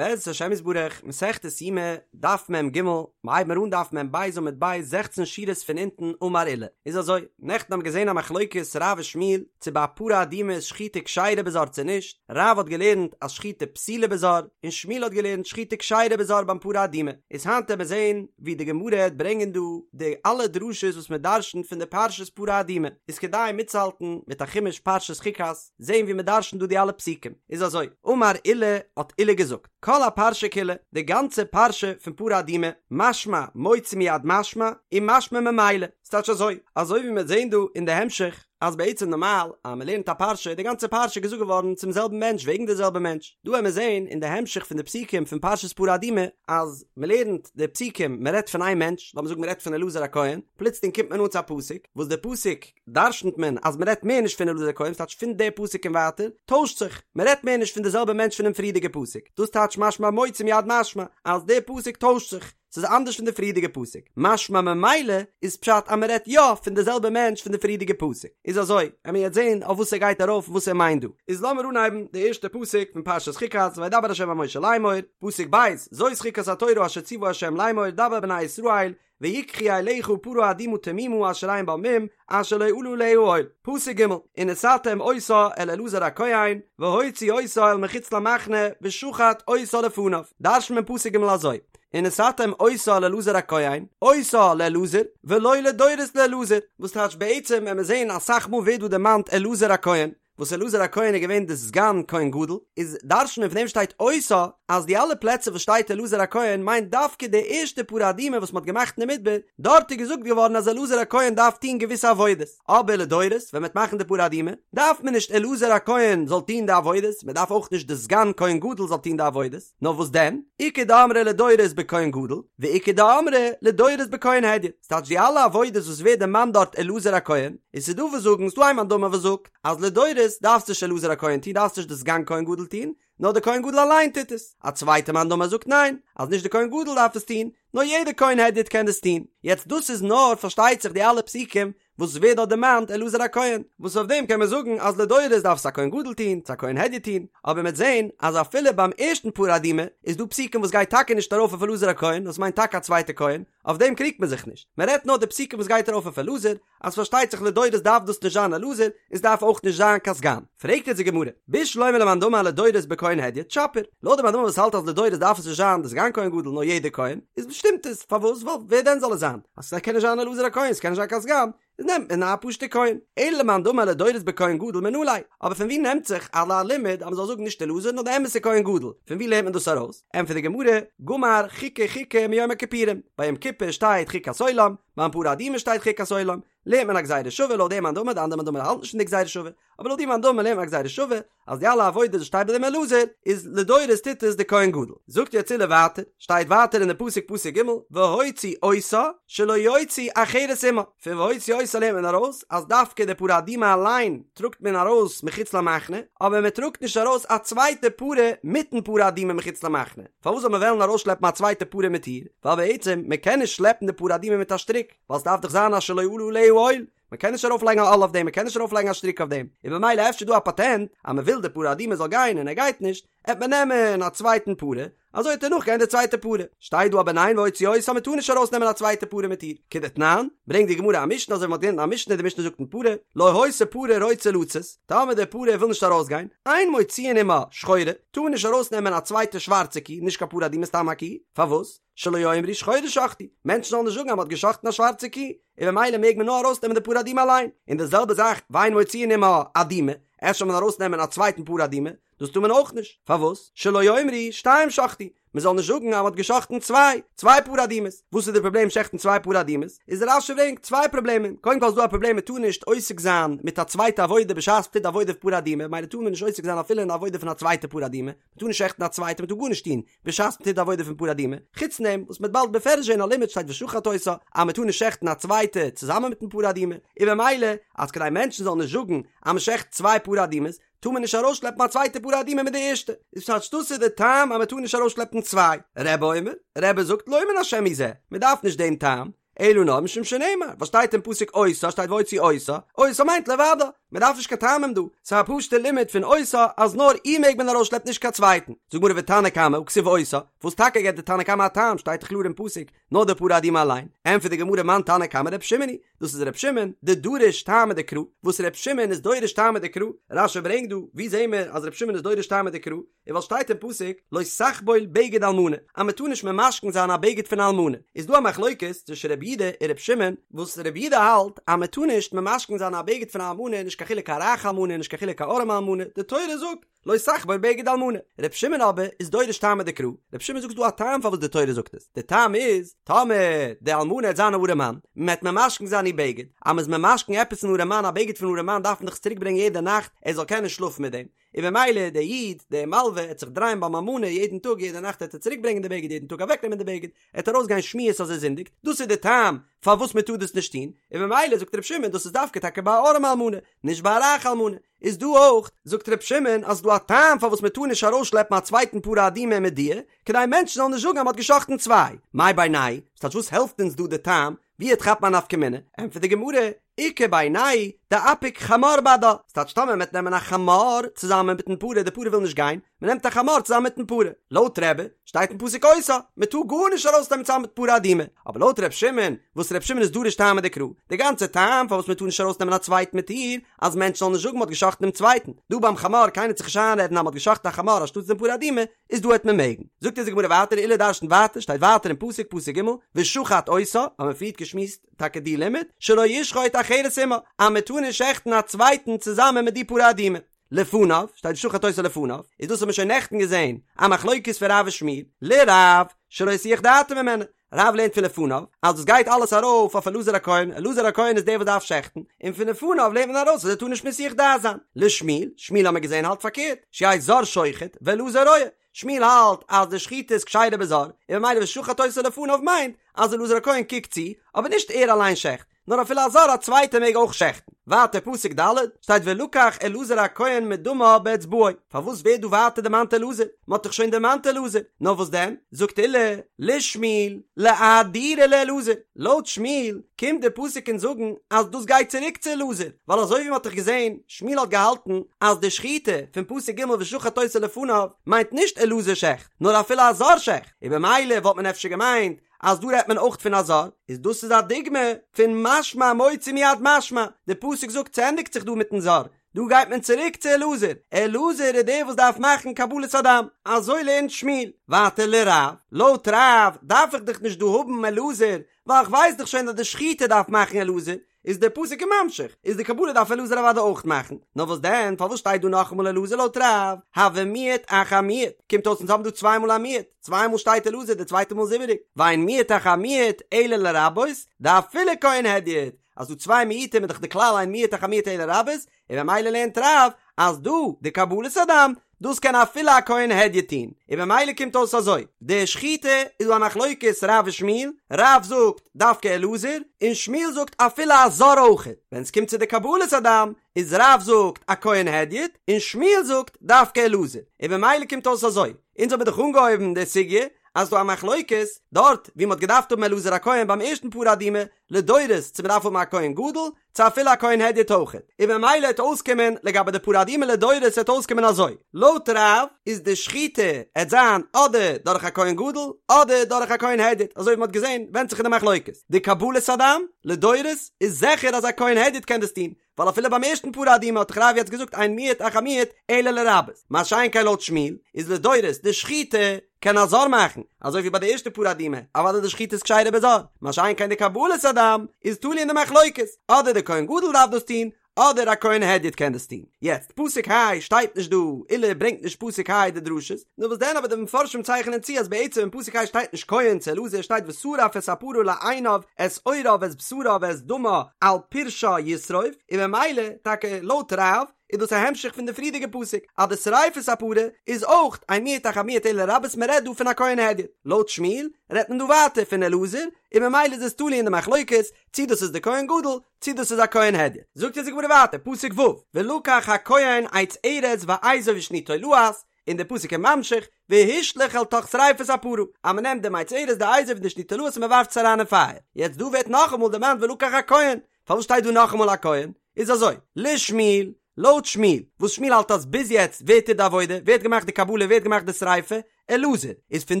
בעזרת השם יתברך, מסכת יומא, דף מ"ג, מ'הייבן מיר אן דף מ"ב עמוד ב', זעכצן שורות פון אונטן, אמר עולא. איז אזוי, נעכטן האבן מיר געזען א מחלוקת רב ושמואל, צו ביי א פרה אדומה איז שחיטה כשרה בזר צו נישט, רב האט געלערנט אז שחיטה פסולה בזר, און שמואל האט געלערנט שחיטה כשרה בזר ביים פרה אדומה. איז היינט עמיר זען ווי די גמרא העט ברענגען דא די אלע דרשות וואס מען דרשנ'ט פון די פרשת פרה אדומה, איז כדאי מיטצוהאלטן מיט א חומש פרשת חוקת, זעהן ווי מען דרשנ'ט דא די אלע פסוקים, איז אזוי, אמר עולא, האט עולא געזאגט, כל הפרשה כולה, די גאנצע פרשה פון פרה אדומה, משמע מוציא מיד משמע, און משמע ממילא, ס'טייטש אזוי, אזוי ווי מ'וועט זעהן דא אין די המשך, אז בעצם נארמאל אז מ'לערנט א פרשה איז די גאנצע פרשה געזאגט געווארן צום זעלבן מענטש וועגן די זעלבע מענטש, דא וועמיר זעהן אין די המשך פון די פסוקים פון פרשת פרה אדומה, אז מ'לערנט די פסוקים מ'רעדט פון איין מענטש, לאמיר זאגן מ'רעדט פון אלעזר הכהן, פלוצלינג קומט מען אן צו א פסוק, וואס די פסוק דרשנ'ט מען אז מ'רעדט מער נישט פון אלעזר הכהן, ס'טייטש פון די פסוק און ווייטער טוישט זיך, מ'רעדט מער נישט פון די זעלבע מענטש פונעם פריערדיגע פסוק, דאס טייטש משמע מוציא מיד משמע אז די פסוק טוישט זיך, ס'איז אנדערש פון די פריערדיגע פסוק, משמע ממילא איז פשט אז מ'רעדט יא פון די זעלבע מענטש פון די פריערדיגע פסוק, איז אזוי, עמיר יעצט זען אויף וואס ער גייט ארויף און וואס ער מיינט דא. איז לאמיר אנהייבן די ערשטע פסוק פון פרשת חוקת, וידבר ה' אל משה לאמור, פסוק ב', זאת חוקת התורה אשר ציוה ה' לאמור דבר אל בני ישראל, ויקחו אליך פרה אדומה תמימה אשר אין בה מום אשר לא עלה עליה עול. פסוק ג', ונתתם אותה אל אלעזר הכהן והוציא אותה אל מחוץ למחנה ושחט אותה לפניו. דרש'נט מען פסוק ג' אזוי, ונתתם אותה אל אלעזר הכהן, אותה לאלעזר, ולא לדורות לאלעזר, וואס טייטש בעצם ווען מיר זעהן אסאך מאל ווערט דא דערמאנט אלעזר הכהן, וואס אלעזר הכהן איז געווען די סגן כהן גדול, איז דרש'נט מען פון דעם שטייט אותה אז די אלע פלעצער וואס שטייט אלעזר הכהן מיינט דווקא די ערשטע פרה אדומה וואס מ'האט געמאכט אין די מדבר, דארט איז געזאגט געווארן אז אלעזר הכהן דארף טון געוויסע עבודות, אבער לדורות ווען מ'וועט מאכן די פרה אדומה דארף מען נישט אלעזר הכהן זאל טון די עבודות, מ'דארף אויך נישט די סגן כהן גדול זאל טון די עבודות, נאר וואס דען? איכא דאמרי לדורות בכהן גדול, ואיכא דאמרי לדורות בכהן הדיוט, ס'טייטש די אלע עבודות וואס ווערט דערמאנט דארט אלעזר הכהן, און ס'דא וואס זאגן, ס'דא איין מאן דאמר וואס זאגט, אז לדורות דארף נישט אלעזר הכהן טון, דארף נישט די סגן כהן גדול טון, נאר די כהן גדול אליין טוט עס. א צווייטע מאן דאמר זאגט ניין, אז נישט די כהן גדול דארף עס טון, נאר יעדער כהן הדיוט קען דאס טון. יעצט דאס איז נאר פארשטייט זיך די אלע פסוקים וואס ווערט דארט דערמאנט אלעזר הכהן, וואס אויף דעם קען מען זאגן אז לדורות דארף עס א כהן גדול טון, צו א כהן הדיוט טון, אבער מ'עט זען אז אפילו ביים ערשטן פרה אדומה איז דא פסוקים וואס גייט טאקע נישט ארויף אויף אלעזר הכהן, דאס מיינט טאקע א צווייטע כהן, אויף דעם קריגט מען זיך נישט, מען רעדט נאר די פסוקים וואס גייט ארויף אויף אלעזר, אז פארשטייט זיך לדורות דארף דאס נישט זיין אלעזר, און ס'דארף אויך נישט זיין קיין סגן. פרעגט יעצט די גמרא, בשלמא למאן דאמר לדורות בכהן הדיוט שפיר, לויט די מאן דאמר וואס האלט אז לדורות דארף עס נישט זיין די סגן כהן גדול נאר יעדער כהן, איז שטימט עס, פארוואס? ווייל ווער דען זאל עס זיין? אז ס'קען נישט זיין אלעזר הכהן, ס'קען נישט זיין קיין סגן, איז נעמט מען א פשוט'ע כהן. אלא למאן דאמר לדורות בכהן גדול מנא ליה, אבער פון ווי נעמט זיך אזא לימוד אז מ'זאל זאגן נישט אלעזר נאר די אמת'ע כהן גדול, פון ווי לערנט מען דאס ארויס? ענטפערט די גמרא, גמר חוקה חוקה מיום הכיפורים, ביי יום כיפור שטייט חוקת עולם, ביים פרה אדומה שטייט חוקת עולם, לערנט מען א גזירה שווה לויט דעם מאן דאמר, די אנדערע מאן דאמר האלט נישט פון די גזירה שווה, אבער לויט די מאן דאמר לערנט מען א גזירה שווה, אז די אלע עבודות וואס שטייט ביי דעם אלעזר, איז לדורות טוט עס די כהן גדול. זאגט יעצט עולא ווייטער, שטייט ווייטער אין די פסוק פסוק ג', והוציא אותה שלא יוציא אחרת עמה, פון והוציא אותה לערנט מען ארויס אז דווקא די פרה אדומה אליין טראגט מען ארויס מחוץ למחנה, אבער מען טראגט נישט ארויס א צווייטע פרה מיטן פרה אדומה מחוץ למחנה. פארוואס זאל מען וועלן ארויסשלעפן א צווייטע פרה מיט איר? ווייל בעצם מען קען נישט שלעפן די פרה אדומה מיט א שטריק, ווייל ס'דארף דאך זיין אשר לא עלה עליה עול, מען קען נישט ארויפלייגן א עול אויף דעם, מען קען נישט ארויפלייגן א שטריק אויף דעם, און במילא אפשר דא א פאטענט אז מען וויל די פרה אדומה זאל גיין און ער גייט נישט, עט מען נעמען א צווייטן פרה, אזוי עט ער נאכגיין די צווייטע פרה. שטייט דא אבער ניין והוציא אותה מען טאר נישט ארויסנעמען א צווייטע פרה מיט איר, כדתנן, ברענגט די גמרא א משנה אזוי ווי מען האט געלערנט אין א משנה, די משנה זאגט אין פרה, לא היתה פרה רוצה לצאת, טאמער די פרה וויל נישט ארויסגיין, אין מוציאין עמה שחורה, טאר מען נישט ארויסנעמען א צווייטע שווארצע קי, נישט קיין פרה אדומה סתם א קי, פארוואס? שלא יאמרו שחורה שחטו, מענטשן זאלן נישט זאגן אז מען האט געשחטן א שווארצע קי, און במילא מעג מען נאר ארויסנעמען די פרה אדומה אליין, און די זעלבע זאך ואין מוציאין עמה אדומה, אפשר זאל מען ארויסנעמען א צווייטן פרה אדומה, דאס טאר מען אויך נישט, פארוואס? שלא יאמרו שתיים שחטו, מען זאל נישט זאגן אז מען האט געשחטן צוויי, צוויי פרה אדומות, וואס איז די פראבלעם שעכטן צוויי פרה אדומות? איז רש"י ברענגט צוויי פראבלעמען, קודם כל איז דא א פראבלעם מען טאר נישט עוסק זיין מיט א צווייטע עבודה בשעת מען טוט די עבודה פון פרה אדומה, ממילא טאר מען נישט עוסק זיין אפילו אין די עבודה פון א צווייטע פרה אדומה, מען טאר נישט שעכטן א צווייטע, מען טאר גארנישט טון בשעת מען טוט די עבודה פון פרה אדומה, חוץ פון דעם וואס מען וועט באלד בפירוש זען א לימוד שטייט ושחט אותה אז מען טאר נישט שעכטן א צווייטע צוזאמען מיטן פרה אדומה, און במילא אז כדי מענטשן זאלן נישט זאגן אז מען שעכט צוויי פרה אדומות, טאר מען נישט ארויסשלעפן א צווייטע פרה אדומה מיט די ערשטע, איז פשט דאס איז די טעם אז מען טאר נישט ארויסשלעפן צוויי, רבי אומר, רבי זאגט לא מן השם הוא זה, מען דארף נישט דעם טעם, אלא נאר משום שנאמר, וואס שטייט אין פסוק אותה שטייט והוציא אותה, אותה מיינט לבדה, מען דארף נישט קיין טעמים דא, ס'איז א פשוט'ע לימוד פון אותה אז נאר איר מעג מען ארויסשלעפן נישט קיין צווייטן. זאגט גמרא ותנא קמא הא כתיב אותה, וואס טאקע געבט די תנא קמא א טעם, שטייט דאך קלאר אין פסוק נאר די פרה אדומה אליין, ענטפערט די גמרא מאן תנא קמא ר' שמעון היא, דאס איז ר' שמעון, דדריש טעמא דקרא, וואס ר' שמעון איז דורש טעמא דקרא, רש"י ברענגט דא, ווי זעהן מיר אז ר' שמעון איז דורש טעמא דקרא, און ווייל שטייט אין פסוק לא תחבול בגד אלמנה, אז מען טאר נישט ממשכן זיין א בגד פון א אלמנה, איז דא א מחלוקת צווישן רבי יהודה און רבי שמעון, וואס רבי יהודה האלט אז מען טאר נישט ממשכן זיין א בגד פון א אלמנה נישט קיין חילוק א רייכע אלמנה נישט קיין חילוק א ארעמע אלמנה, די תורה זאגט לא תחבול בגד אלמנה, רבי שמעון אבער איז דורש טעמא דקרא, רבי שמעון זאגט ס'דא א טעם פארוואס די תורה זאגט עס, די טעם איז, טאמער די אלמנה העט זיין א ארעמאן, מען העט ממשכן זיין איר בגד, אז מען איז ממשכן עפעס אן ארעמאן א בגד פון ארעמאן דארף מען דאך עס צוריק ברענגען יעדע נאכט ער זאל קענען שלאפן מיט דעם, און במילא דער איד, דער מלווה, העט זיך דרייען ביים אלמנה יעדן טאג, יעדע נאכט העט ער צוריק ברענגען די בגד, יעדן טאג אוועק נעמען די בגד, עט ארויס גיין שמועות אז ער זינדיגט, דאס איז די טעם פארוואס מען טאר דאס נישט טון, און במילא זאגט ר' שמעון דאס איז דווקא טאקע ביי א ארעמע אלמנה, נישט ביי א רייכע אלמנה, איז דא אויך, זאגט ר' שמעון אז ס'דא א טעם פארוואס מען טאר נישט ארויסשלעפן א צווייטן פרה אדומה מיט דיר, כדי מענטשן זאלן נישט זאגן אז מען האט געשאכטן צוויי, מאי בינייהו, ס'טייטש וואס העלפט אונז דא די טעם, ווי עט כאפן א נפקא מינה? ענטפערט די גמרא, איכא בינייהו דאפיק חמור בהדה, ס'טייטש טאמער מ'עט נעמען א חמור צוזאמען מיטן פרה, די פרה וויל נישט גיין, מ'נעמט א חמור צוזאמען מיטן פרה, לויט רבי שטייט אין פסוק אותה, מ'טאר גארנישט ארויסנעמען צוזאמען מיט פרה אדומה, אבער לויט ר' שמעון, וואס ר' שמעון איז דורש טעמא דקרא, די גאנצע טעם פארוואס מ'טאר נישט ארויסנעמען א צווייטן מיט איר, אז מענטשן זאלן נישט זאגן מ'האט געשאכטן דעם צווייטן, דא ביים חמור קיינער עט זיך נישט איינרעדן אז מ'האט געשאכטן א חמור אנשטאטס דעם פרה אדומה, איז דא העט מען מעגן. זאגט אונז די גמרא ווייטער עולא דרש'נט ווייטער שטייט ווייטער אין פסוק פסוק ג' ושחט אותה האבן מיר פריערט געשמועסט טאקע די לימוד שלא ישחוט אחרת עמה אז מען טאר נישט שעכטן א צווייטן צוזאמען מיט די פרה אדומה לפניו שטייט ושחט אותה לפניו איז דאס האבן מיר שוין נעכטן געזען א מחלוקת פון רב ושמואל לרב שלא יסיח דעתו ממנה רב לערנט פון לפניו אז דאס גייט אלעס ארויף אויף אלעזר הכהן, אלעזר הכהן איז דער וואס דארף שעכטן, און פון לפניו לערנט מען ארויס אז ער טאר נישט מסיח דעת זיין. לשמואל, שמואל האמיר געזען האלט פארקערט, שיהא זר שוחט ואלעזר רואה, שמואל האלט אז די שחיטה איז כשרה בזר, און ממילא ושחט אותה לפניו מיינט אז אלעזר הכהן קוקט צו, אבער נישט ער אליין שעכט. נאר אפילו א זר א צווייטער מעג אויך שעכטן. ווייטער פסוק ד' שטייט ולקח אלעזר הכהן מדמה באצבעו, פארוואס ווערט דא ווייטער דערמאנט אלעזר? מען האט דאך שוין דערמאנט אלעזר, נאר וואס דען? זאגט עולא לשמואל לאהדורי לאלעזר, לויט שמואל קומט דער פסוק אונז זאגן אז דאס גייט צוריק צו אלעזר, ווייל אזוי ווי מען האט דאך געזען, שמואל האט געהאלטן אז די שחיטה פון פסוק ג' ושחט אותה לפניו מיינט נישט אלעזר שעכט, נאר אפילו א זר שעכט, און במילא וואלט מען אפשר געמיינט אז דא רעדט מען אויך פון א זר, איז דאס איז א דוגמא פון משמע מוציא מיד משמע, די פסוק זאגט ס'ענדיגט זיך דא מיטן זר, דא גייט מען צוריק צו אלעזר, אלעזר איז דער וואס דארף מאכן קבלת הדם, אזוי לערנט שמואל, ווייטער לרב, לויט רב דארף איך דאך נישט דא האבן אלעזר, ווייל איך ווייס דאך שוין אז די שחיטה דארף מאכן אלעזר, איז דער פסוק ממשיך, איז די קבלה דארף אלעזר אוודאי אויך מאכן, נאר וואס דען, פארוואס שטייט דא נאכאמאל אלעזר לויט רב, הוי מיעוט אחר מיעוט, קומט אויס אונז האבן דא צוויי מאל א מיעוט, צוויי מאל שטייט אלעזר די צווייטע מאל איז איבעריג, ואין מיעוט אחר מיעוט אלא לרבות, דאפילו כהן הדיוט, אז דא צוויי מיעוטים איז דאך די כלל אין מיעוט אחר מיעוט אלא לרבות, און ממילא לערנט רב אז דא די קבלת הדם דאס קען אפילו א כהן הדיוט טון, און ממילא קומט אויס אזוי, די שחיטה איז דא א מחלוקת רב ושמואל, רב זאגט דווקא אלעזר, און שמואל זאגט אפילו א זר אויכעט, ווען עס קומט צו די קבלת הדם איז רב זאגט א כהן הדיוט, און שמואל זאגט דווקא אלעזר, און ממילא קומט אויס אזוי, אונז האבן דאך אנגעהויבן די סוגיא אז ס'דא א מחלוקת דארט ווי מ'האט געדארפט האבן אלעזר הכהן ביים ערשטן פרה אדומה לדורות צו מ'דארף האבן א כהן גדול צו אפילו א כהן הדיוט אויכעט, און ממילא העט אויסקומען לגבי די פרה אדומה לדורות העט אויסקומען אזוי, לויט רב איז די שחיטה העט זיין אדער דורך א כהן גדול אדער דורך א כהן הדיוט, אזוי ווי מ'האט געזען ווענדט זיך אין די מחלוקת, די קבלת הדם לדורות איז זיכער אז א כהן הדיוט קען דאס טון, ווייל אפילו ביים ערשטן פרה אדומה האט דאך רב יעצט געזאגט אין מיעוט אחר מיעוט אלא לרבות, מה שאין כן לויט שמואל איז לדורות די שחיטה קען א זר מאכן, אזוי ווי ביי די ערשטע פרה אדומה, אוודאי די שחיטה איז כשרה בזר, מה שאין כן די קבלת הדם איז תלוי אין די מחלוקת, אדער די כהן גדול דארף דאס טון, אדער א כהן הדיוט קען דאס טון. יעצט, פסוק ה' שטייט נישט דא, עולא ברענגט נישט פסוק ה' די דרשות, נאר וואס דען אבער די מפרשים צייכענען צו אז בעצם אין פסוק ה' שטייט נישט כהן צו אלעזר שטייט ושרף את הפרה לעיניו את עורה ואת בשרה ואת דמה על פרשה ישרוף, און ממילא טאקע לויט רב איז דאס א המשך פון די פריערדיגע פסוק אז די שריפת הפרה איז אויך אין מיעוט אחר מיעוט אלא לרבות מען רעדט דא פון א כהן הדיוט, לויט שמואל רעדט מען דא ווייטער פון אלעזר און ממילא איז עס תלוי אין די מחלוקת צי דאס איז די כהן גדול צי דאס איז א כהן הדיוט. זאגט אונז די גמרא ווייטער פסוק ו' ולקח הכהן עץ ארז ואזוב ושני תולעת און די פסוק איז ממשיך והשליך אל תוך שריפת הפרה אז מען נעמט דעם עץ ארז די אזוב און די שני תולעת און מען ווארפט עס אריין אין פייער יעצט דא ווערט נאכאמאל דערמאנט ולקח הכהן פארוואס שטייט דא נאכאמאל הכהן? איז אזוי, לשמואל, לויט שמואל, וואס שמואל האלט אז ביז יעצט ווער טוט די עבודה, ווער האט געמאכט די קבלה, ווער האט געמאכט די שריפה, אלעזר, איז פון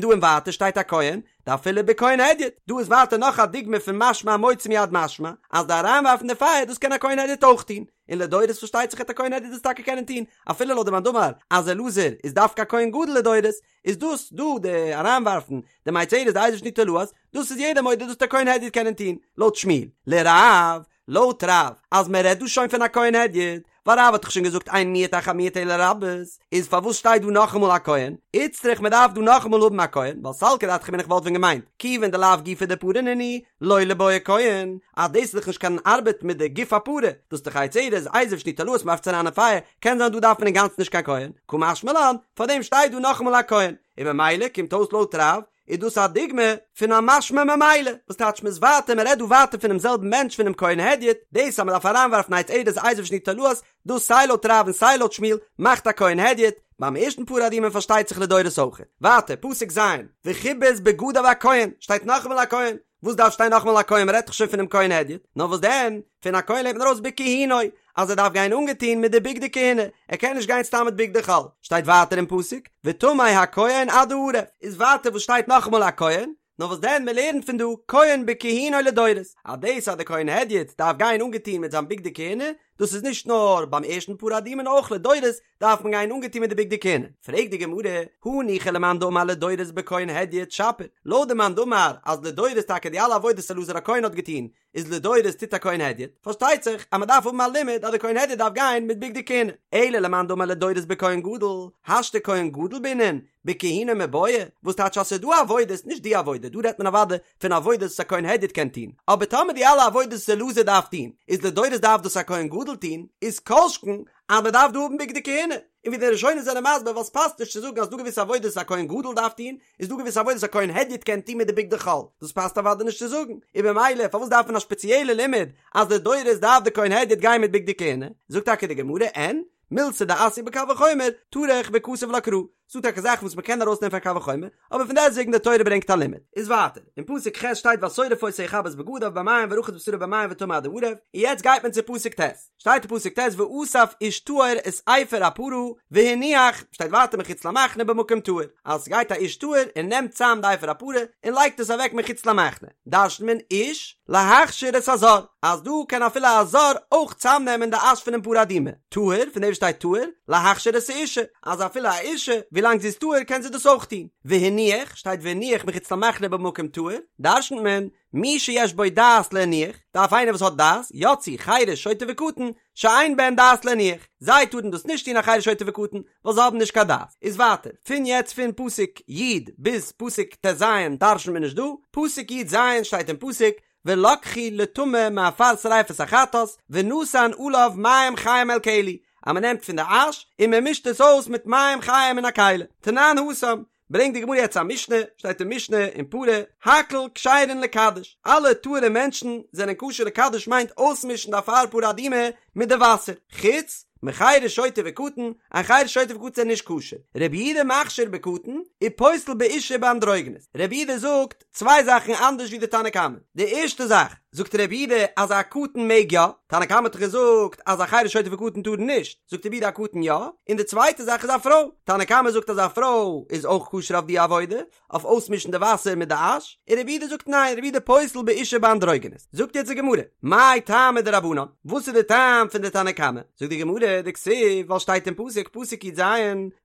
דא און ווייטער שטייט א כהן, דאפילו בכהן הדיוט, דא איז ווייטער נאך א דוגמא פון משמע המוציא מיד משמע, אז די אריינווארפן די פייער דאס קען א כהן הדיוט אויך טון, און לדורות פארשטייט זיך העט א כהן הדיוט דאס טאקע קענען טון, אפילו לויט די מאן דאמר אז אלעזר איז דווקא א כהן גדול לדורות, איז דאס דא די אריינווארפן די מי ארז די אזוב שני תולעת, דאס איז יעדער מודה דאס העט א כהן הדיוט קענען טון, לויט שמואל, לרב, לויט רב, אז מען רעדט דא שוין פון א כהן הדיוט, ווייל רב האט דאך שוין געזאגט אין מיעוט אחר מיעוט אלא לרבות, איז פארוואס שטייט דא נאכאמאל א כהן? איצטריך מען דארף דא נאכאמאל האבן א כהן, ווייל סלקא דעתך אמינא איך וואלט ווען געמיינט, כיוון דלאו גופא דפרה נינהו, לא ליבעי כהן, אז דאס איז דאך נישט קיין ארבעט מיט די גוף הפרה, דאס איז דאך עץ ארז, אזוב שני תולעת מען ווארפט עס אריין אין פייער, קען זיין דא דארף מען אינגאנצן נישט קיין כהן, קא משמע לן, פארדעם שטייט דא נאכאמאל א כהן, און ממילא קומט אויס לויט רב, איז דאס א דוגמא פון א משמע ממילא, וואס טייטש מ'איז ווייטער, מ'רעדט דא ווייטער פונעם זעלבן מענטש פונעם כהן הדיוט, דאס אז מ'דארף אריינווארפן עץ ארז אזוב שני תולעת, דאס סיי לויט רב און סיי לויט שמואל מאכט א כהן הדיוט, ביים ערשטן פרה אדומה פארשטייט זיך לדורות אויך. ווייטער, פסוק ז', וכבס בגדיו הכהן, שטייט נאכאמאל א כהן, וואס דארף שטיין נאכאמאל א כהן מ'רעדט דאך שוין פונעם כהן הדיוט, נאר וואס דען, פון א כהן לערנט מען ארויס בכהונו, אז ער דארף גיין אנגעטון מיט די בגדי כהונה, ער קען נישט גיין סתם מיט בגדי חול, שטייט ווייטער אין פסוק, וטמא הכהן עד הערב, איז ווייטער וואס שטייט נאכאמאל א כהן, נאר וואס דען מען לערנט פון דא, כהן בכהונו לדורות, אז דאס אז די כהן הדיוט דארף גיין אנגעטון מיט זיין בגדי כהונה, דאס איז נישט נאר ביים ערשטן פרה אדומה נאר אויך לדורות דארף מען גיין אנגעטון מיט די בגדי כהונה. פרעגט די גמרא, הניחא למאן דאמר לדורות בכהן הדיוט שפיר, לויט די מאן דאמר אז לדורות טאקע די אלע עבודות אלעזר הכהן האט געטון איז לדורות טוט א כהן הדיוט, פארשטייט זיך אז מען דארף האבן א לימוד אז די כהן הדיוט דארף גיין מיט בגדי כהונה, אלא למאן דאמר לדורות בכהן גדול, השתא כהן גדול בעינן, בכהונו מיבעיא, וואס טייטש אז ס'איז דא עבודות, נישט די עבודה, דא רעדט מען אוודאי פון עבודות וואס א כהן הדיוט קען טון, אבער טאמער די אלע עבודות וואס אלעזר דארף טון, איז לדורות דארף דאס א כהן גדול טון, איז כל שכן אז מען דארף דא האבן בגדי כהונה, און ווי די ראשונים זענען מסביר ווייל ס'פאסט נישט צו זאגן אז ס'דא געוויסע עבודות וואס א כהן גדול דארף טון, איז דא געוויסע עבודות וואס א כהן הדיוט קען טון מיט די בגדי חול, דאס פאסט אוודאי נישט צו זאגן, און במילא פארוואס דארף מען א שפעציעלע לימוד אז לדורות דארף די כהן הדיוט גיין מיט בגדי כהונה? זאגט טאקע די גמרא אין, מילתא דאתיא בקל וחומר, טרח וכתב לה קרא, ס'דא טאקע זאכן וואס מ'קען ארויסנעמען פון קל וחומר, אבער פון דעסטוועגן די תורה ברענגט א לימוד. איז ווייטער, אין פסוק ח' שטייט והשורף אותו יכבס בגדיו במים ורחץ בשרו במים וטמא עד הערב, און יעצט גייט מען צו פסוק ט', שטייט אין פסוק ט' ואסף איש טהור את אפר הפרה והניח, שטייט ווייטער מחוץ למחנה במקום טהור, אז ס'גייט א איש טהור און נעמט צאם די אפר הפרה און לייגט עס אוועק מחוץ למחנה, דרש'נט מען איש להכשיר את הזר, אז דא קען אפילו א זר אויך צאמנעמען די אש פונעם פרה אדומה, טהור, פון דעם שטייט טהור, להכשיר את האישה, אז אפילו א אישה, ווילאנג זי איז טהור קען זי דאס אויך טון, והניח, שטייט והניח מחוץ למחנה במקום טהור, דרש'נט מען, מי שיש בו דעת להניח, דארף איינער וואס האט דעת, יצאו חרש שוטה וקטן, שאין בהן דעת להניח, זיי טארן דאס נישט טון א חרש שוטה וקטן, ווייל זיי האבן נישט קיין דעת. איז ווייטער, פון יעצט פון פסוק י' ביז פסוק ט"ז דרש'נט מען נישט דא, פסוק י"ז שטייט אין פסוק, ולקחו לטמא מעפר שריפת החטאת, ונתן עליו מים חיים אל כלי, אז מען נעמט פון די אש און מען מישט עס אויס מיט מים חיים אין א כלי. תנן התם, ברענגט די גמרא יעצט א משנה, שטייט אין משנה אין פרה, הכל כשרין לקדש, אלע טהור'ע מענטשן זענען כשר לקדש מיינט אויסמישן די אפר פרה אדומה מיט די וואסער, חוץ מחרש שוטה וקטן, א חרש שוטה וקטן זענען נישט כשר, רבי יהודה מכשיר בקטן, ופוסל באשה ובאנדרוגינוס, רבי יהודה זאגט צוויי זאכן אנדערש ווי די תנא קמא, די ערשטע זאך זאגט רבי יהודה אז א קטן מעג יא, תנא קמא האט דאך געזאגט אז א חרש שוטה וקטן טארן נישט, זאגט רבי יהודה א קטן יא, און די צווייטע זאך איז א פרוי, תנא קמא זאגט אז א פרוי איז אויך כשר אויף די עבודה, אויף אויסמישן די וואסער מיט די אש, און רבי יהודה זאגט ניין, רבי יהודה פוסל באשה ובאנדרוגינוס, זאגט יעצט די גמרא, מאי טעמא דרבנן, וואס איז די טעם פון די תנא קמא, זאגט די גמרא, דכתיב, ווייל שטייט אין פסוק, פסוק י"ז,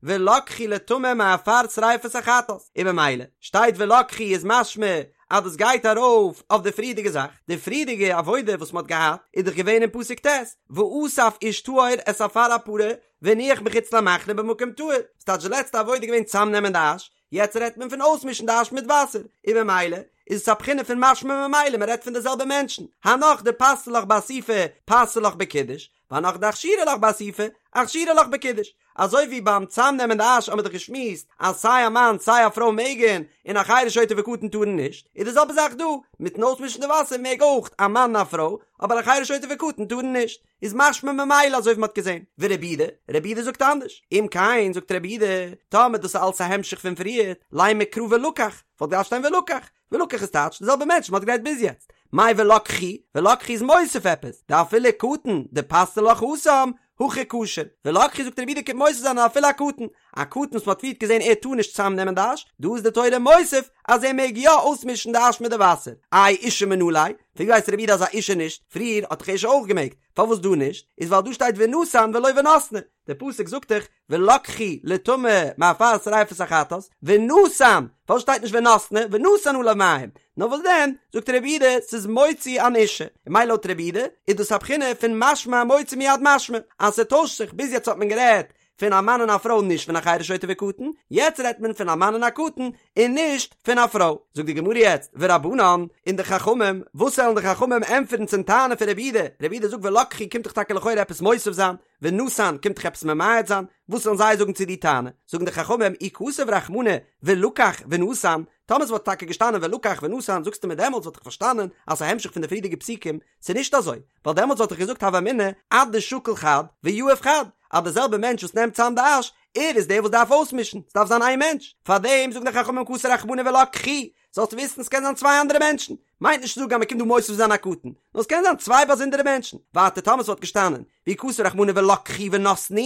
ולקחו לטמא מעפר שריפת החטאת, און במילא, שטייט ולקחו איז משמע אז דאס גייט ארויף אויף די פריערדיגע זאך, די פריערדיגע עבודה וואס מען האט געהאט איז דאך געווען אין פסוק ט', ואסף איש טהור את עפר הפרה והניח מחוץ למחנה במקום טהור, ס'טייטש די לעצטע עבודה איז געווען צאמנעמען די אש, יעצט רעדט מען פון אויסמישן די אש מיט וואסער, און במילא איז עס א בחינה פון משמע ממילא מען רעדט פון די זעלבע מענטשן, הנך דפתו לך באסיפה פתו לך בקידוש, והנך דאכשרו לך באסיפה. אכשורי לך בקידוש, אזוי ווי ביים צאמנעמען די אש האמיר דאך געשמועסט אז סיי א מאן סיי א פרוי מעגן, און א חרש שוטה וקטן טארן נישט, איז די זעלבע זאך דא, מיטן אויסמישן די וואסער מעג אויך א מאן און א פרוי, אבער א חרש שוטה וקטן טארן נישט, איז משמע ממילא אזוי ווי מ'האט געזען. ורבי יהודה, רבי יהודה זאגט אנדערש, אם כן זאגט רבי יהודה, טאמער דאס איז אלס א המשך פון פריערט, לימא קרא ולקח, וואלט געדארפט שטיין ולקח, ולקח איז טייטש די זעלבע מענטש מ'האט גערעדט ביז יעצט. מאי ולקחו, ולקחו איז מוסיף עפעס, דאפילו קטן דפתני לך התם, הכי כשר. ולקחו זאגט רבי יהודה קומט מוסיף זיין אז אפילו א קטן, א קטן וואס מ'האט פריערט געזען ער טאר נישט צוזאם נעמען די אש, דא איז די תורה מוסיף אז ער מעג יא אויסמישן די אש מיט די וואסער. איי אשה מנא ליה? פון ווי ווייסט רבי יהודה אז א אשה נישט? פריער האט דאך אשה אויך געמעגט, פארוואס דא נישט? איז ווייל דא שטייט ונתן ולא ונתנו, דער פסוק זאגט דאך ולקחו לטמא מעפר שריפת החטאת, ונתן, פארוואס שטייט נישט ונתנו, ונתן עליו מים, נאר וואס דען, זאגט רבי יהודה, ס'איז מוציא אן אשה, און ממילא לויט רבי יהודה, איז דאס א בחינה פון משמע מוציא מיד משמע, אז ס'טוישט זיך, ביז יעצט האט מען גערעדט פון א מאן און א פרוי נישט פון א חרש שוטה וקטן, יעצט רעדט מען פון א מאן און א קטן און נישט פון א פרוי. זאגט די גמרא יעצט, ורבנן, און די חכמים, וואס וועלן די חכמים ענטפערן צום טענה פון רבי יהודה, רבי יהודה זאגט ולקחו קומט דאך טאקע לכאורה עפעס מוסיף זיין, ונתן קומט דאך עפעס ממעט זיין, וואס וועלן זיי זאגן צו די טענה? זאגן די חכמים, אי כתב רחמנא ולקח ונתן, טאמער ס'וואלט טאקע געשטאנען ולקח ונתן, זאגסטו מיר דעמאלטס וואלט איך פארשטאנען אז ס'איז א המשך פון די פריערדיגע פסוקים, ס'איז נישט אזוי, ווייל דעמאלטס וואלט איך געזאגט הוה אמינא אדשקיל חד ויהיב חד, אז די זעלבע מענטש וואס נעמט צאם די אש, ער איז דער וואס דארף אויסמישן, ס'דארף זיין איין מענטש, פארדעם זאגן די חכמים כתב רחמנא ולקחו, זאלסט וויסן ס'קען זיין צוויי אנדערע מענטשן, מיינט נישט צו זאגן אז מ'קומט דא מוסיף זיין א קטן, נאר ס'קען זיין צוויי באזונדערע מענטשן, ווייטער טאמער ס'וואלט געשטאנען ואי כתב רחמנא ולקחו ונתנו,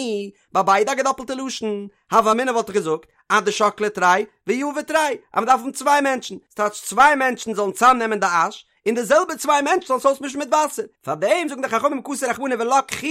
ביי ביידע א געדאפלטע לשון, הוה אמינא וואלט איך געזאגט אדשקלי תרי ויהבי תרי, אז מ'דארף האבן צוויי מענטשן, ס'טייטש צוויי מענטשן זאלן צאמנעמען די אש, און די זעלבע צוויי מענטשן זאלן עס אויסמישן מיט וואסער, פארדעם זאגן די חכמים כתב רחמנא ולקחו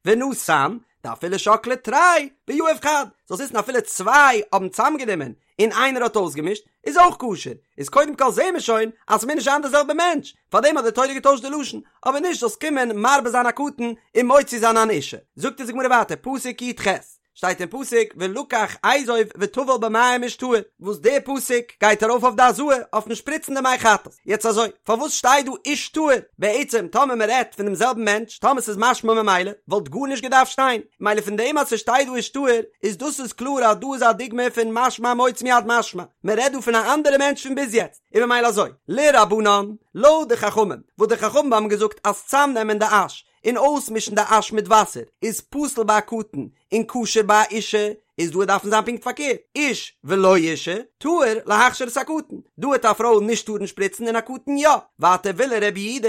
ונתן, דאפילו שקלי תרי ויהיב חד, זאלסט וויסן אפילו צוויי האבן צאמגענומען און איינער האט אויסגעמישט, איז אויך כשר, איז קודם כל זעהן מיר שוין אז ס'מוז נישט זיין די זעלבע מענטש, פארדעם האט די תורה געטוישט די לשון, אבער נישט זאלסט קומען מרבה זיין א קטן און מוציא זיין אן אשה. זאגט אונז די גמרא ווייטער, פסוק י"ח, שטייט אין פסוק ולקח אזוב וטבל במים איש טהור, וואס די פסוק גייט ארויף אויף די הזאה, אויפן שפריצן די מי חטאת, יעצט אזוי, פארוואס שטייט דא איש טהור? בעצם טאמער מען רעדט פון דעם זעלבן מענטש, טאמער ס'איז משמע ממילא, וואלט גארנישט געדארפט שטיין, מילא פון דעם אז ס'שטייט דא איש טהור, איז דאס איז קלאר אז דא איז א דוגמא פון משמע מוציא מיד משמע, מען רעדט דא פון א אנדערע מענטש פון ביז יעצט, און ממילא אזוי, לרבנן, לויט די חכמים, וואס די חכמים האבן געזאגט אז צאמנעמען די אש, און אויסמישן די אש מיט וואסער, איז פסול ביי א קטן, און כשר ביי א אישה, איז דא דארף מען זיין פונקט פארקערט, איש ולא אישה, טהור להכשיר את הקטן, דא העט א פרוי נישט טארן שפריצן און א קטן יא, ווייטער ולרבי יהודה,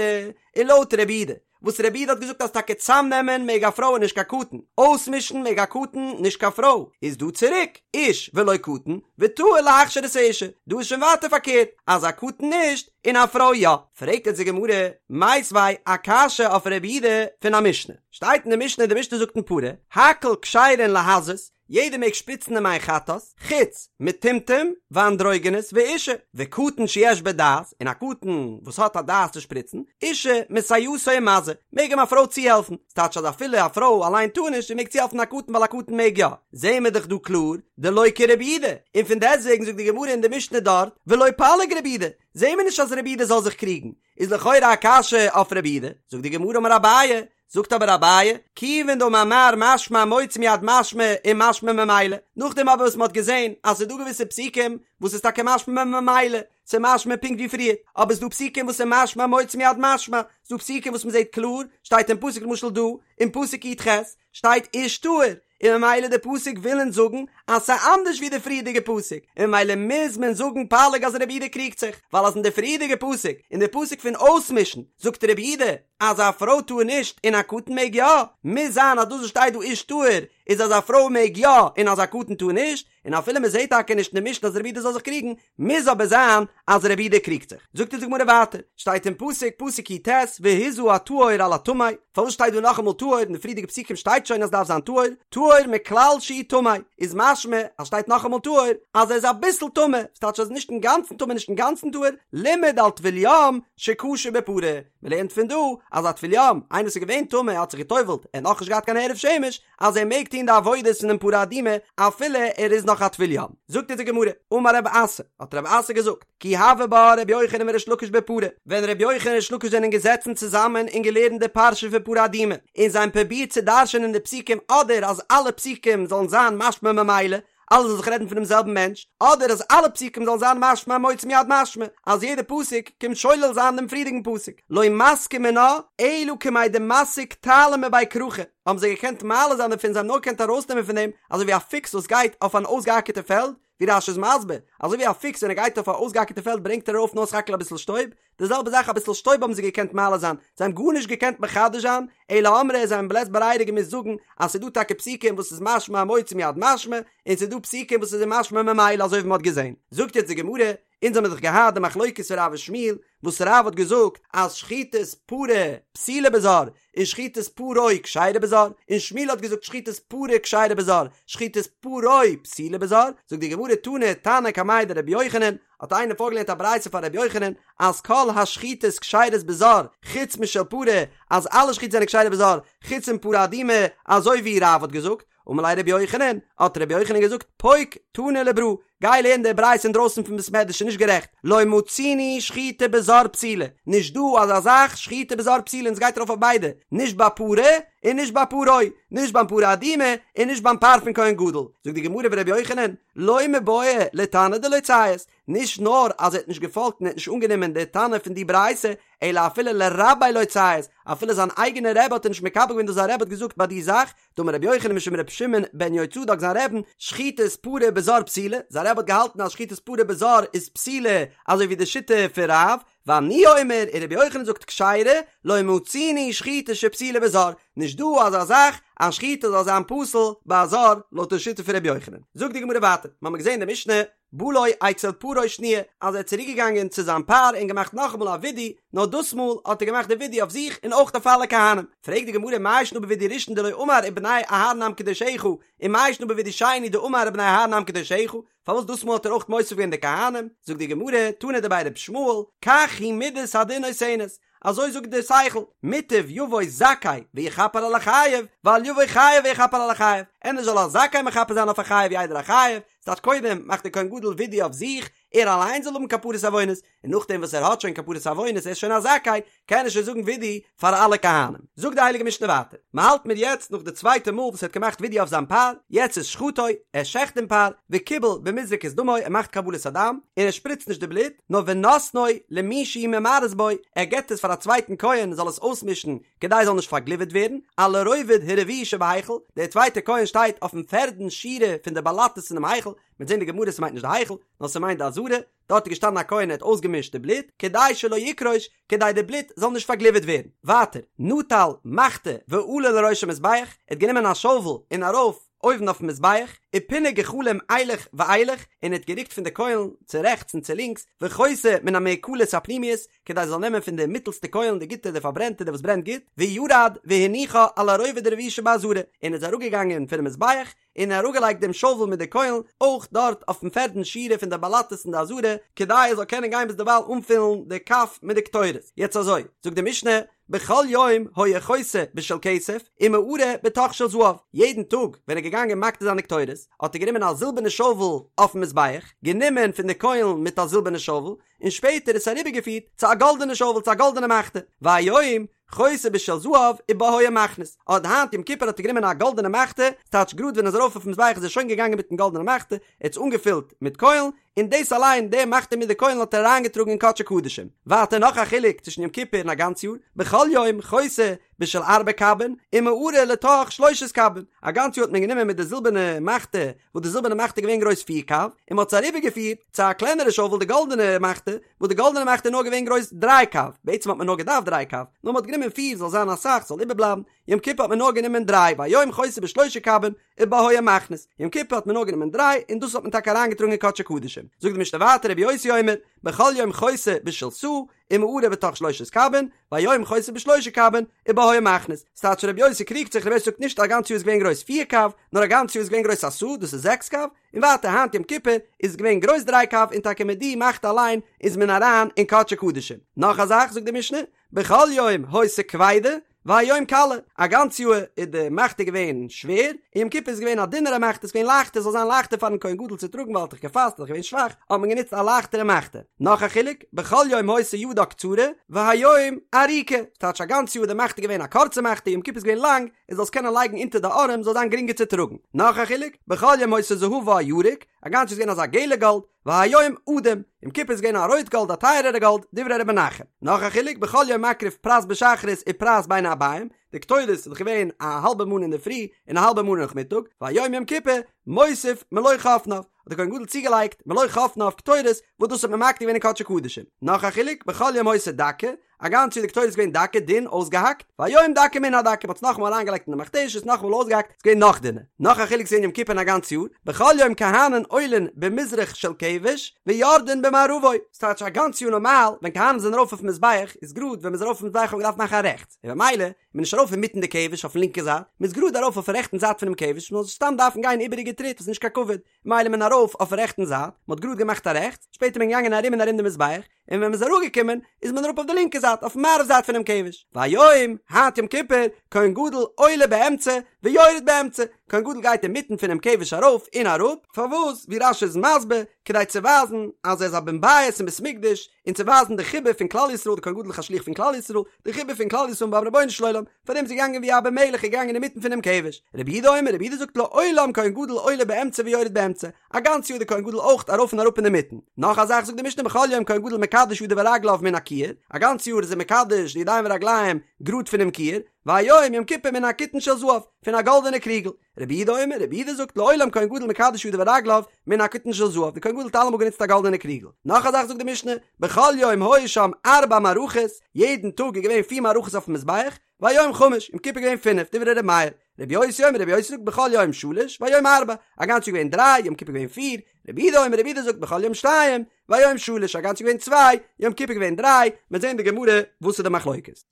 און לויט רבי יהודה, וואס רבי יהודה האט געזאגט אז טאקע צאמנעמען מעג א פרוי און נישט קיין קטן, אויסמישן מעג א קטן נישט קיין פרוי, איז דא צוריק, איש ולא קטן, וטהור להכשיר את האישה, דא איז שוין ווייטער פארקערט, אז א קטן נישט, און א פרוי יא. פרעגט יעצט די גמרא, מיתיבי א קשיא אויף רבי יהודה פון א משנה, שטייט אין די משנה, די משנה זאגט אין פרה, הכל כשרין להזות, יעדער מעג שפריצן די מי חטאת, חוץ מטומטום ואנדרוגינוס ואישה, וקטן שיש בו דעת, און א קטן וואס האט א דעת צו שפריצן, אישה מסייעתו ומזה, מעג אים א פרוי צוהעלפן, ס'טייטש אז אפילו א פרוי אליין טאר נישט, זי מעג צוהעלפן א קטן ווייל א קטן מעג יא, זעהן מיר דאך דא קלאר, דלא כרבי יהודה, און פון דעסטוועגן זאגט די גמרא אין די משנה דארט, ולא פליג רבי יהודה, זעהן מיר נישט אז רבי יהודה זאל זיך קריגן, איז לכאורה א קשיא אויף רבי יהודה, זאגט די גמרא אמר אביי, זאגט אבער אביי, כיוון דאמר מר משמע מוציא מיד משמע ומשמע ממילא, נאכדעם אבער וואס מען האט געזען אז ס'איז דא געוויסע פסוקים וואס איז טאקע משמע ממילא, ס'איז משמע פונקט ווי פריער, אבער ס'איז דא פסוקים וואס איז משמע מוציא מיד משמע, ס'איז דא פסוקים וואס מען זעט קלאר, שטייט אין פסוק למשל דא, אין פסוק י"ח, שטייט איש טהור, און ממילא די פסוק וויל אונז זאגן אז ס'איז אנדערש ווי די פריערדיגע פסוק, און ממילא מוז מען זאגן פליג אז רבי יהודה קריגט זיך, ווייל אז אין די פריערדיגע פסוק, אין די פסוק פון אויסמישן, זאגט רבי יהודה אז א פרוי טאר נישט און א קטן מעג יא, מוז זיין אז דאס וואס שטייט דא איש טהור איז אז א פרוי מעג יא און אז א קטן טאר נישט, און אפילו מען זעט טאקע נישט אין די משנה אז רבי יהודה זאל זיך קריגן, מוז אבער זיין אז רבי יהודה קריגט זיך. זאגט אונז די גמרא ווייטער, שטייט אין פסוק, פסוק י"ט, והזה הטהור על הטמא, פארוואס שטייט דא נאכאמאל טהור, אין די פריערדיגע פסוקים שטייט שוין אז דארף זיין טהור, טהור מכלל שהוא טמא, איז משמע אז שטייט נאכאמאל טהור, אז ער איז אביסל טמא, ס'טייטש אז נישט אינגאנצן טמא נישט אינגאנצן טהור, לימד על טבול יום שכשר בפרה, מען לערנט פון דא. אז א טבול יום, איינער וואס איז געווען טמא האט זיך גע'טובל'ט, ער האט נאכנישט געהאט קיין הערב שמש, אז ער מעג טון די עבודות פונעם פרה אדומה אפילו ער איז נאך א טבול יום. זאגט אונז די גמרא, אמר רב אסי, האט רב אסי געזאגט, כי הוה בה רבי יוחנן וריש לקיש בפרה, ווען רבי יוחנן און ריש לקיש זענען געזעצן צוזאמען און געלערנט די פרשה פון פרה אדומה, און זיי האבן פרובירט צו דרש'ענען די פסוקים אדער אז אלע פסוקים זאלן זיין משמע ממילא, אלעס זאל זיך רעדן פונעם זעלבן מענטש, אדער אז אלע פסוקים זאלן זיין משמע המוציא מיד משמע, אז יעדע פסוק קומט שולל זיין דעם פריערדיגן פסוק, לא מסקי מינה אלא כמאי דמסיק תעלא מבי כרכא, האבן זיי געקענט מעלה זיין דערפון, זיי האבן נאר געקענט ארויסנעמען פון דעם אזוי ווי א פוקס וואס גייט אויף אן אויסגעאקערטע פעלד, ווי רש"י איז מסביר, אזוי ווי א פוקס ווען ער גייט אויף א אויסגעאקערטע פעלד ברענגט ער ארויף נאר סך הכל אביסל שטויב, די זעלבע זאך אביסל שטויב האבן זיי געקענט מעלה זיין, זיי האבן גארנישט געקענט מחדש זיין, אלא אמרי זיי האבן בלית ברירה געמוזט זאגן אז ס'איז דא טאקע פסוקים וואס איז משמע המוציא מיד משמע, און ס'איז דא פסוקים וואס איז משמע ממילא אזוי ווי מ'האט געזען. זאגט יעצט די גמרא, אונז האמיר דאך געהאט די מחלוקת פון רב ושמואל, וואס רב האט געזאגט אז שחיטת פרה פסולה בזר, און שחיטת פרו כשרה בזר, און שמואל האט געזאגט שחיטת פרה כשרה בזר, שחיטת פרו פסולה בזר, זאגט די גמרא תני תנא קמיה דרבי יוחנן, האט איינער פארגעלערנט א ברייתא פאר רבי יוחנן אז כל השחיטות כשרות בזר חוץ משל פרה, אז אלע שחיטות זענען כשרה בזר חוץ פון פרה אדומה, אזוי ווי רב האט געזאגט, אמר ליה רבי יוחנן, האט רבי יוחנן געזאגט, פוק תני לברא, גיי לערן די ברייתא אינדרויסן פון בית מדרש איז נישט גערעכט, לא מצינו שחיטה בזר פסולה, נישט דא אזא זאך שחיטה בזר פסולה און עס גייט ארויף אויף ביידע, נישט ביי פרה און נישט ביי פרו, נישט ביים פרה אדומה און נישט ביים פר פון כהן גדול, זאגט די גמרא ורבי יוחנן, לא מיבעיא לתנא דלא ציית, נישט נאר אז ער האט נישט געפאלגט און ער האט נישט אנגענומען די תנא פון די ברייתא, אלא אפילו לרביה לא ציית, אפילו זיין אייגענע רבי האט ער נישט מקבל געווען דאס זיין רבי האט געזאגט ביי די זאך, דאמר רבי יוחנן משום רבי שמעון בן יהוצדק זיין רעבן, שחיטת פרה בזר פסולה, זיין רבי האט געהאלטן אז שחיטת פרה בזר איז פסולה אזוי ווי די שיטה פון רב, ואני אומר, און רבי יוחנן זאגט כשרה, לא מצינו שחיטה שפסולה בזר, נישט דא אזא זאך אז שחיטה זאל זיין פסול ביי א זר לויט די שיטה פון רבי יוחנן. זאגט די גמרא ווייטער, מ'האמיר געזען אין די משנה, בא לו אצל פרו שניה, אז ער איז צוריק געגאנגען צו זיין פר און געמאכט נאכאמאל א וידוי, נאר דאס מאל האט ער געמאכט די וידוי אויף זיך און אויך אויף אלע כהנים. פרעגט די גמרא מאי שנא בוידוי ראשון דלא אמר ובני אהרן עם קדושיך, און מאי שנא בוידוי שני דאמר ובני אהרן עם קדושיך, פארוואס דאס מאל האט ער אויך מוסיף געווען די כהנים? זאגט די גמרא, תנא דבי ר' ישמעאל, כך היא מידת הדין נותנת, אזוי זאגט דער שכל, מוטב יבוא זכאי ויכפר על החייב, ואל יבוא חייב ויכפר על החייב, ענדערש זאל א זכאי מכפר זיין אויף א חייב ווי איידער א חייב, ס'טייטש קודם מאכט דער כהן גדול וידוי אויף זיך, ער אליין זאל האבן כפרת עוונות, און נאכדעם וואס ער האט שוין כפרת עוונות, ער איז שוין א זכאי, קען ער שוין זאגן וידוי פאר אלע כהנים. זאגט די הייליגע משנה ווייטער, מען האלט מיר יעצט נאך די צווייטע מאל וואס ער האט געמאכט וידוי אויף זיין פר, יעצט איז שחטו, ער שעכט דעם פר, וקיבל במזרקת דמו, ער מאכט קבלת הדם, און ער שפריצט נישט די בלוט, נאר ונותנו למי שהוא ממרס בו, ער געבט עס פאר א צווייטן כהן זאל עס אויסמישן כדי עס זאל נישט פארגליווערט ווערן, על הרובד הרביעי שבהיכל, דער צווייטער כהן שטייט אויפן פערדן שורה פון די באלאטעס אינעם היכל, מ'וועט זען די גמרא ס'מיינט נישט די היכל, נאר ס'מיינט די עזרה, דארט איז געשטאנען א כהן ער האט אויסגעמישט די בלוט, כדי שלא יקרוש, כדי די בלוט זאל נישט פארגליווערט ווערן. ווייטער, נטל מחתה ועלה לראש המזבח, ער האט גענומען א שאוול און ארויף אויבן אויפן מזבח, ופינה גחלים אילך ואילך, און ער האט גערוקט פון די קוילן צו רעכטס און צו לינקס, וחותה מן המאוכלות הפנימיות, כדי ער זאל נעמען פון די מיטלסטע קוילן די גוטע די פארברענטע די וואס ברענט גוט, וירד והניחה על הרובד הרביעי שבעזרה, און איז אראפגעגאנגען פונעם מזבח, און אראפגעלייגט דעם שאוול מיט די קוילן אויך דארט אויפן פערדן שורה פון די באלאטעס אין די עזרה, כדי ער זאל קענען גיין ביזדערווייל אנפילן די כף מיט די קטורת. יעצט אזוי, זאגט די משנה, בכל יום היה חותה בשל כסף ומערה בתוך של זהב, יעדן טאג ווען ער איז געגאנגען מקטיר זיין די קטורת, האט ער גענומען א זילבערנע שאוול אויפן מזבח, גענומען פון די קוילן מיט א זילבערנע שאוול, און שפעטער עס אריבערגעפירט צו א גאלדענע שאוול צו א גאלדענע מחתה, והיום חותה בשל זהב ובה היה מכניס, אט היינט יום כיפור האט ער גענומען א גאלדענע מחתה, ס'טייטש גראד ווען ער איז ארויף אויפן מזבח איז ער שוין געגאנגען מיטן גאלדענע מחתה, ער האט עס אנגעפילט מיט קוילן, און דאס אליין, די מחתה מיט די קוילן האט ער אריינגעטראגן אין קדשי קדשים. ווייטער נאך א חילוק צווישן יום כיפור און א גאנץ יאר, בכל יום חותה בשל ארבע קבין ומערה לתוך שלושת קבין, א גאנץ יאר האט מען גענומען מיט די זילבערנע מחתה, וואס די זילבערנע מחתה איז געווען גרויס פיר קב, און מען האט עס אריבערגעפירט צו א קלענערע שאוול די גאלדענע מחתה, וואס די גאלדענע מחתה איז נאר געווען גרויס דריי קב, בעצם האט מען נאר געדארפט דריי קב, נאר מען האט גענומען פיר זאל זיין אסאך זאל איבערבלייבן, יום כיפור האט מען נאר גענומען דריי והיום חותה בשלושה קבין ובה היה מכניס, יום כיפור האט מען נאר גענומען דריי און דאס האט מען טאקע אריינגעטראגן אין קדשי קדשים, זאגט די משנה ווייטער רבי יוסי אומר, בכל יום חותה בשל סאה ומערה בתוך שלושת קבין, והיום חותה בשלושה קבין ובה היה מכניס, ס'טייטש רבי יוסי קריגט זיך רבי יוסי זאגט נישט א גאנץ יאר איז געווען גרויס פיר קב, נאר א גאנץ יאר איז געווען גרויס א סאה דאס איז זעקס קב, און ווייטער היינט יום כיפור איז געווען גרויס דריי קב און טאקע מיט די מחתה אליין איז מען אריין אין קדשי קדשים. נאך א זאך זאגט די משנה, בכל יום היתה כבידה, והיום קלה, א גאנץ יאר איז די מחתה געווען שווער, און יום כיפור איז געווען א דינערע מחתה, עס איז געווען לייכטער, ס'זאל זיין לייכטער פארן כהן גדול צו טראגן ווייל ער האט דאך געפאסט, ער איז דאך געווען שוואך, האט מען גענוצט א לייכטערע מחתה. נאך א חילוק, בכל יום היתה ידה קצרה, והיום ארוכה, ס'טייטש א גאנץ יאר איז די מחתה געווען א קורצע מחתה, יום כיפור איז געווען לאנג, ער זאל עס קענען לייגן אונטער די ארעם, זאל זיין גרינגער צו טראגן. נאך א חילוק, בכל יום היתה זהבה ירוק, א גאנץ יאר איז געווען אזא געלע גאלד, והיום אדום, יום כיפור איז געווען א רויט גאלד א טייערערע גאלד, דברי ר' מנחם. נאך א חילוק, בכל יום מקריב פרס בשחרית ופרס בין הערבים, די קטורת איז דאך געווען א האלבע מנה אינדערפרי און א האלבע מנה נאכמיטאג, והיום יום כיפור מוסיף מלא חפניו, האט דער כהן גדול צוגעלייגט מלא חפניו קטורת וואס דאס האט מען מקטיר געווען אין קדשי קדשים. נאך א חילוק, בכל יום היתה דקה, א גאנץ יאר די קטורת איז געווען דקה, דין, אויסגעהאקט, והיום דקה מן הדקה, מ'האט עס נאכאמאל אריינגעלייגט אין די מכתשת, נאכאמאל אויסגעהאקט, ס'איז געווען נאך דינער. נאך א חילוק צווישן יום כיפור און א גאנץ יאר, בכל יום כהנים עולין במזרח של כבש, ויורדין במערבו. ס'טייטש א גאנץ יאר נארמאל, ווען כהנים זענען ארויף אויפן מזבח, איז גראד ווען מ'איז ארויף אויפן מזבח האט מען געדארפט מאכן א רעכטס, און במילא איז מען נישט ארויף אינמיטן די כבש אויפן לינקע זייט, מ'איז גראד ארויף אויפן רעכטן זייט פונעם כבש, מ'זאל נישט סתם דארפן גיין איבעריגע טריט וואס איז נישט קיין כבוד, מילא איז מען ארויף אויפן רעכטן זייט, מ'האט גראד געמאכט א רעכטס, שפעטער איז מען געגאנגען ארום און ארום די מזבח, און ווען מ'איז אראפגעקומען איז מען אראפ אויף די לינקע זייט, אויפן מערב זייט פונעם כבש. והיום, היינט יום כיפור, כהן גדול עולה באמצע ויורד באמצע, כהן גדול גייט אינמיטן פונעם כבש ארויף און אראפ, פארוואס? ווי רש"י איז מסביר, כדי צו ווייזן אז ער איז א בן בית אין בית מקדש, און צו ווייזן די חיבה פון כלל ישראל, די כהן גדול איז א שליח פון כלל ישראל, די חיבה פון כלל ישראל ביים רבונו של עולם, פאר דעם איז ער געגאנגען ווי א בן מלך איז געגאנגען אינמיטן פונעם כבש. רבי יהודה אומר, רבי יהודה זאגט לעולם כהן גדול עולה באמצע ויורד באמצע, א גאנץ יאר די כהן גדול אויך ארויף און אראפ אינמיטן. נאך א זאך זאגט די משנה בכל יום כהן גדול מקדש ידיו ורגליו מן הכיור, א גאנץ יאר איז ער מקדש די ידיים ורגליים גראד פונעם כיור, והיום יום כיפור מן הקיתון של זהב, פון א גאלדענע קריגל. רבי יהודה אומר, רבי יהודה זאגט לעולם כהן גדול מקדש ידיו ורגליו מן הקיתון של זהב, די כהן גדול האט אלעמאל גענוצט א גאלדענע קריגל. נאך א זאך זאגט די משנה, בכל יום היו שם ארבע מערכות, יעדן טאג איז געווען פיר מערכות אויפן מזבח, והיום חמש, יום כיפור געווען פינף, דברי ר' מאיר. רבי יוסי אומר, רבי יוסי זאגט בכל יום שלש, והיום ארבע, א גאנץ יאר געווען דריי, יום כיפור געווען פיר, רבי יהודה אומר, רבי יהודה זאגט בכל יום שתיים, והיום שלש, א גאנץ יאר געווען צוויי, יום כיפור געווען דריי, מ'עט זען אין די גמרא וואס איז די מחלוקת.